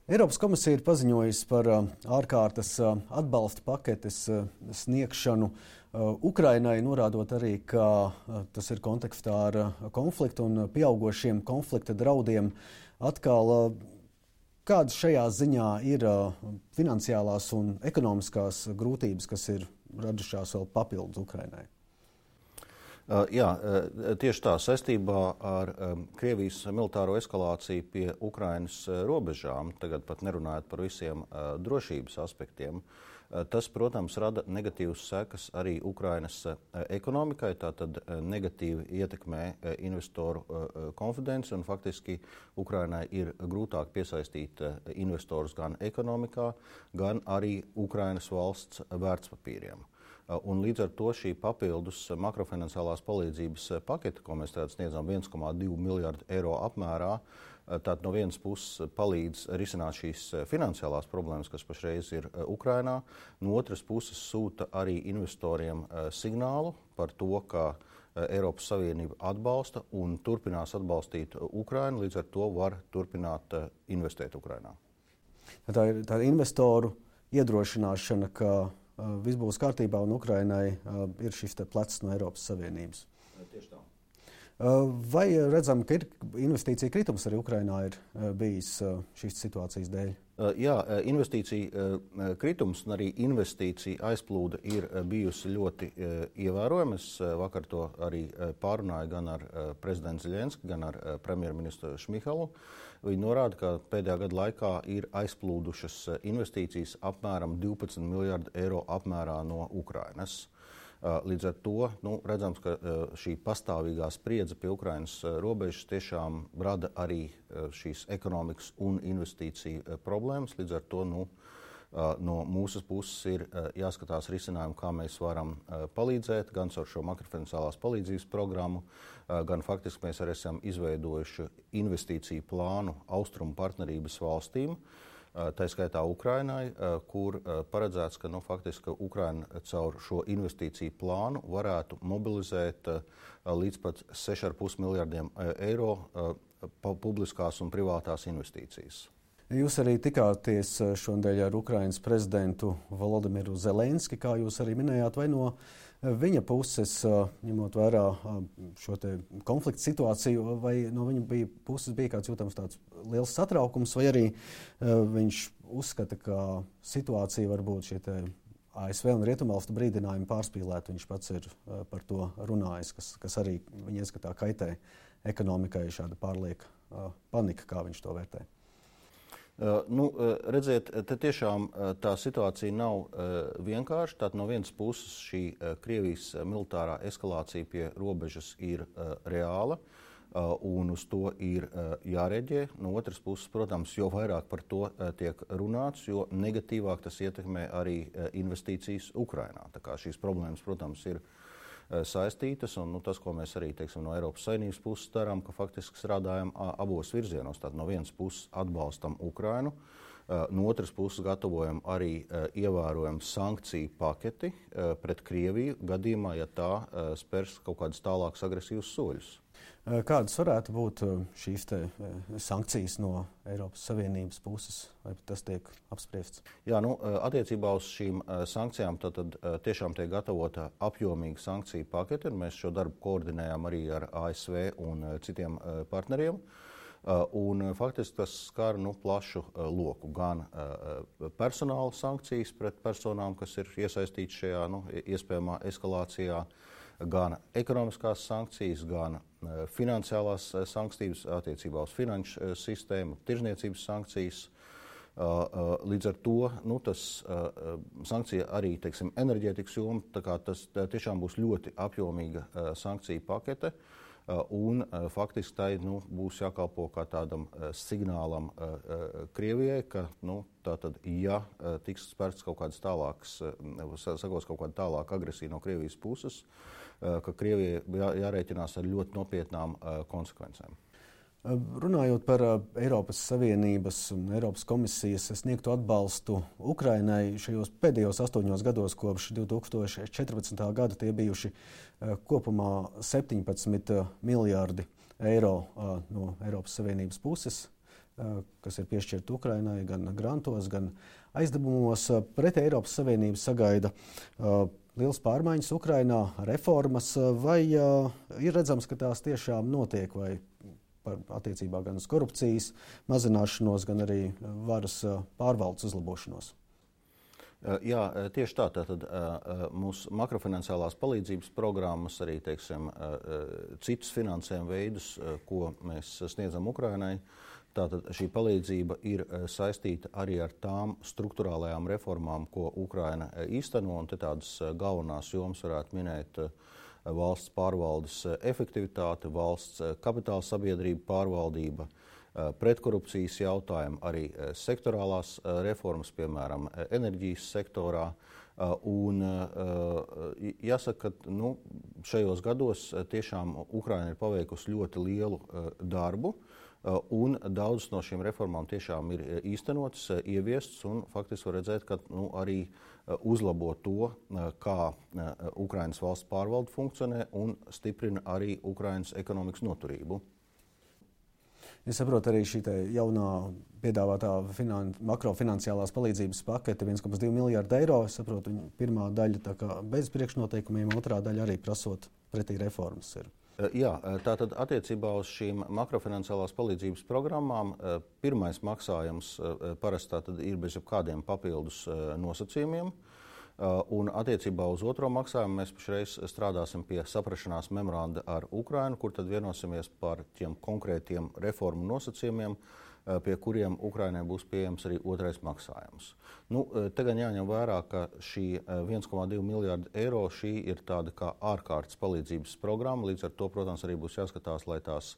Eiropas komisija ir paziņojusi par ārkārtas atbalsta paketes sniegšanu Ukrainai, norādot arī, ka tas ir kontekstā ar konfliktu un pieaugošiem konflikta draudiem. Atkal, kādas šajā ziņā ir finansiālās un ekonomiskās grūtības, kas ir radušās vēl papildus Ukrainai? Jā, tieši tā, saistībā ar Krievijas militāro eskalāciju pie Ukrainas robežām, tagad pat nerunājot par visiem drošības aspektiem, tas, protams, rada negatīvas sekas arī Ukrainas ekonomikai, tātad negatīvi ietekmē investoru konfidenci un faktiski Ukrainai ir grūtāk piesaistīt investorus gan ekonomikā, gan arī Ukrainas valsts vērtspapīriem. Un līdz ar to šī papildus makrofinanciālās palīdzības pakete, ko mēs tagad sniedzam 1,2 miljardu eiro apmērā, tātad no vienas puses palīdz risināt šīs finansiālās problēmas, kas pašreiz ir Ukrainā, no otras puses sūta arī investoriem signālu par to, ka Eiropas Savienība atbalsta un turpinās atbalstīt Ukrainu, līdz ar to var turpināt investēt Ukrainā. Tā ir tā investoru iedrošināšana, ka viss būs kārtībā un Ukrainai ir šis plecs no Eiropas Savienības. Tieši tā. Vai redzam, ka ir investīcija kritums arī Ukrainā ir bijis šīs situācijas dēļ? Jā, investīcija kritums un arī investīcija aizplūde ir bijusi ļoti ievērojama. Es vakar to arī pārunāju gan ar prezidentu Zeļenski, gan ar premjerministru Šmihalu. Viņi norāda, ka pēdējā gada laikā ir aizplūdušas investīcijas apmēram 12 miljardu eiro apmērā no Ukrainas. Līdz ar to redzams, ka šī pastāvīgā spriedze pie Ukrainas robežas tiešām rada arī šīs ekonomikas un investīciju problēmas. Līdz ar to no mūsu puses ir jāskatās risinājumi, kā mēs varam palīdzēt, gan ar šo makrofinanciālās palīdzības programmu, gan faktiski mēs arī esam izveidojuši investīciju plānu austrumu partnerības valstīm, tā skaitā Ukrainai, kur paredzēts, ka faktiski Ukraina caur šo investīciju plānu varētu mobilizēt līdz pat 6,5 miljardiem eiro publiskās un privātās investīcijas. Jūs arī tikāties šodien ar Ukrainas prezidentu Volodimiru Zelenski, kā jūs arī minējāt, vai no viņa puses, ņemot vērā šo te konflikta situāciju, vai no viņa puses bija kāds jūtams tāds liels satraukums, vai arī viņš uzskata, ka situācija varbūt šie te ASV un Rietumvalstu brīdinājumi pārspīlēt, viņš pats ir par to runājis, kas arī viņa ieskatā kaitē ekonomikai, šāda pārlieka panika, kā viņš to vērtē. Redziet, te tiešām tā situācija nav vienkārša. Tātad no vienas puses šī Krievijas militārā eskalācija pie robežas ir reāla un uz to ir jāreģē. No otras puses, protams, jo vairāk par to tiek runāts, jo negatīvāk tas ietekmē arī investīcijas Ukrainā. Tā kā šīs problēmas, protams, ir saistītas, un tas, ko mēs arī no Eiropas Savienības puses darām, ka faktiski strādājam abos virzienos. Tātad no vienas puses atbalstam Ukrainu, no otras puses gatavojam arī ievērojumu sankciju paketi pret Krieviju gadījumā, ja tā spērs kaut kādus tālākus agresīvus soļus. Kādas varētu būt šīs sankcijas no Eiropas Savienības puses, vai tas tiek apspriests? Jā, attiecībā uz šīm sankcijām tad tiešām tiek gatavota apjomīga sankciju pakete, un mēs šo darbu koordinējam arī ar ASV un citiem partneriem. Un faktiski tas skar plašu loku, gan personāla sankcijas pret personām, kas ir iesaistītas šajā iespējamā eskalācijā, gan ekonomiskās sankcijas, gan finansiālās sankcijas attiecībā uz finanšu sistēmu, tirzniecības sankcijas. Līdz ar to tas sankcija arī, enerģētikas joma, tā kā tas tiešām būs ļoti apjomīga sankcija pakete. Un faktiski tai būs jākalpo kā tādam signālam Krievijai, ka tātad, ja tiks spērts kaut kādas tālākas, sakos kaut kāda tālāka agresija no Krievijas puses, ka Krievijai jārēķinās ar ļoti nopietnām konsekvencēm. Runājot par Eiropas Savienības un Eiropas komisijas sniegto atbalstu Ukrainai šajos pēdējos 8 gados kopš 2014. gada tie bijuši kopumā 17 miljārdi eiro no Eiropas Savienības puses. kas ir piešķirti Ukrainai gan grantos, gan aizdevumos. Pret Eiropas Savienību sagaida liels pārmaiņas Ukrainā, reformas, vai ir redzams, ka tās tiešām notiek, vai attiecībā gan uz korupcijas mazināšanos, gan arī varas pārvaldes uzlabošanos? Jā, tieši tā. Tātad mūsu makrofinanciālās palīdzības programmas, arī teiksim, citus finansējuma veidus, ko mēs sniedzam Ukrainai, tātad šī palīdzība ir saistīta arī ar tām struktūrālajām reformām, ko Ukraina īsteno, un te tādas galvenās jomas varētu minēt valsts pārvaldes efektivitāte, valsts kapitāla sabiedrība pārvaldība, pretkorupcijas jautājumi, arī sektorālās reformas, piemēram, enerģijas sektorā. Un jāsaka, ka šajos gados tiešām Ukraina ir paveikusi ļoti lielu darbu, un daudzas no šīm reformām tiešām ir īstenotas, ieviestas, un faktiski var redzēt, ka arī uzlabo to, kā Ukrainas valsts pārvalde funkcionē un stiprina arī Ukrainas ekonomikas noturību. Es saprotu, arī šī jaunā piedāvātā makrofinanciālās palīdzības pakete 1,2 miljārdu eiro. Es saprotu, pirmā daļa bez priekšnoteikumiem, otrā daļa arī prasot pretī reformas ir. Jā, tātad attiecībā uz šīm makrofinanciālās palīdzības programmām pirmais maksājums parasti ir bez jebkādiem papildus nosacījumiem. Un attiecībā uz otro maksājumu mēs pašreiz strādāsim pie saprašanās memoranda ar Ukrainu, kur tad vienosimies par tiem konkrētiem reformu nosacījumiem, pie kuriem Ukrainai būs pieejams arī otrais maksājums. Te gan jāņem vērā, ka šī 1,2 miljārdu eiro šī ir tāda kā ārkārtas palīdzības programma, līdz ar to, protams, arī būs jāskatās, lai tās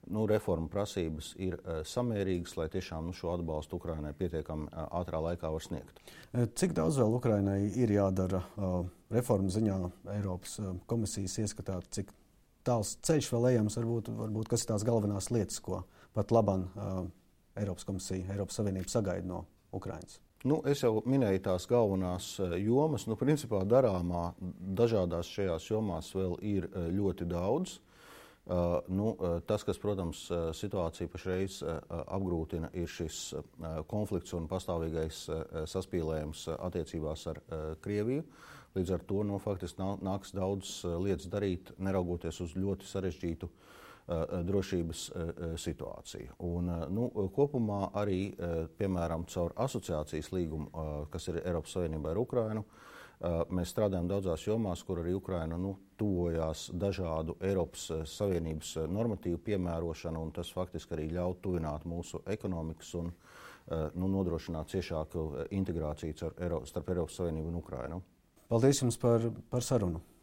reforma prasības ir samērīgas, lai tiešām šo atbalstu Ukrainai pietiekami ātrā laikā var sniegt. Cik daudz vēl Ukrainai ir jādara reformu ziņā Eiropas komisijas ieskatā, cik tāls ceļš vēl ejams, varbūt kas ir tās galvenās lietas, ko pat labam Eiropas komisija, Eiropas Savienība sagaida no Ukrainas? Es jau minēju tās galvenās jomas. Principā darāmā dažādās šajās jomās vēl ir ļoti daudz. Tas, kas, protams, situāciju pašreiz apgrūtina, ir šis konflikts un pastāvīgais saspīlējums attiecībās ar Krieviju. Līdz ar to faktiski nāks daudz lietas darīt, neraugoties uz ļoti sarežģītu drošības situāciju. Un, kopumā arī, piemēram, caur asociācijas līgumu, kas ir Eiropas Savienībā ar Ukrainu, mēs strādājam daudzās jomās, kur arī Ukraina tuvojās dažādu Eiropas Savienības normatīvu piemērošanu, un tas faktiski arī ļauj tuvināt mūsu ekonomikas un nodrošināt ciešāku integrāciju starp Eiropas Savienību un Ukrainu. Paldies jums par sarunu!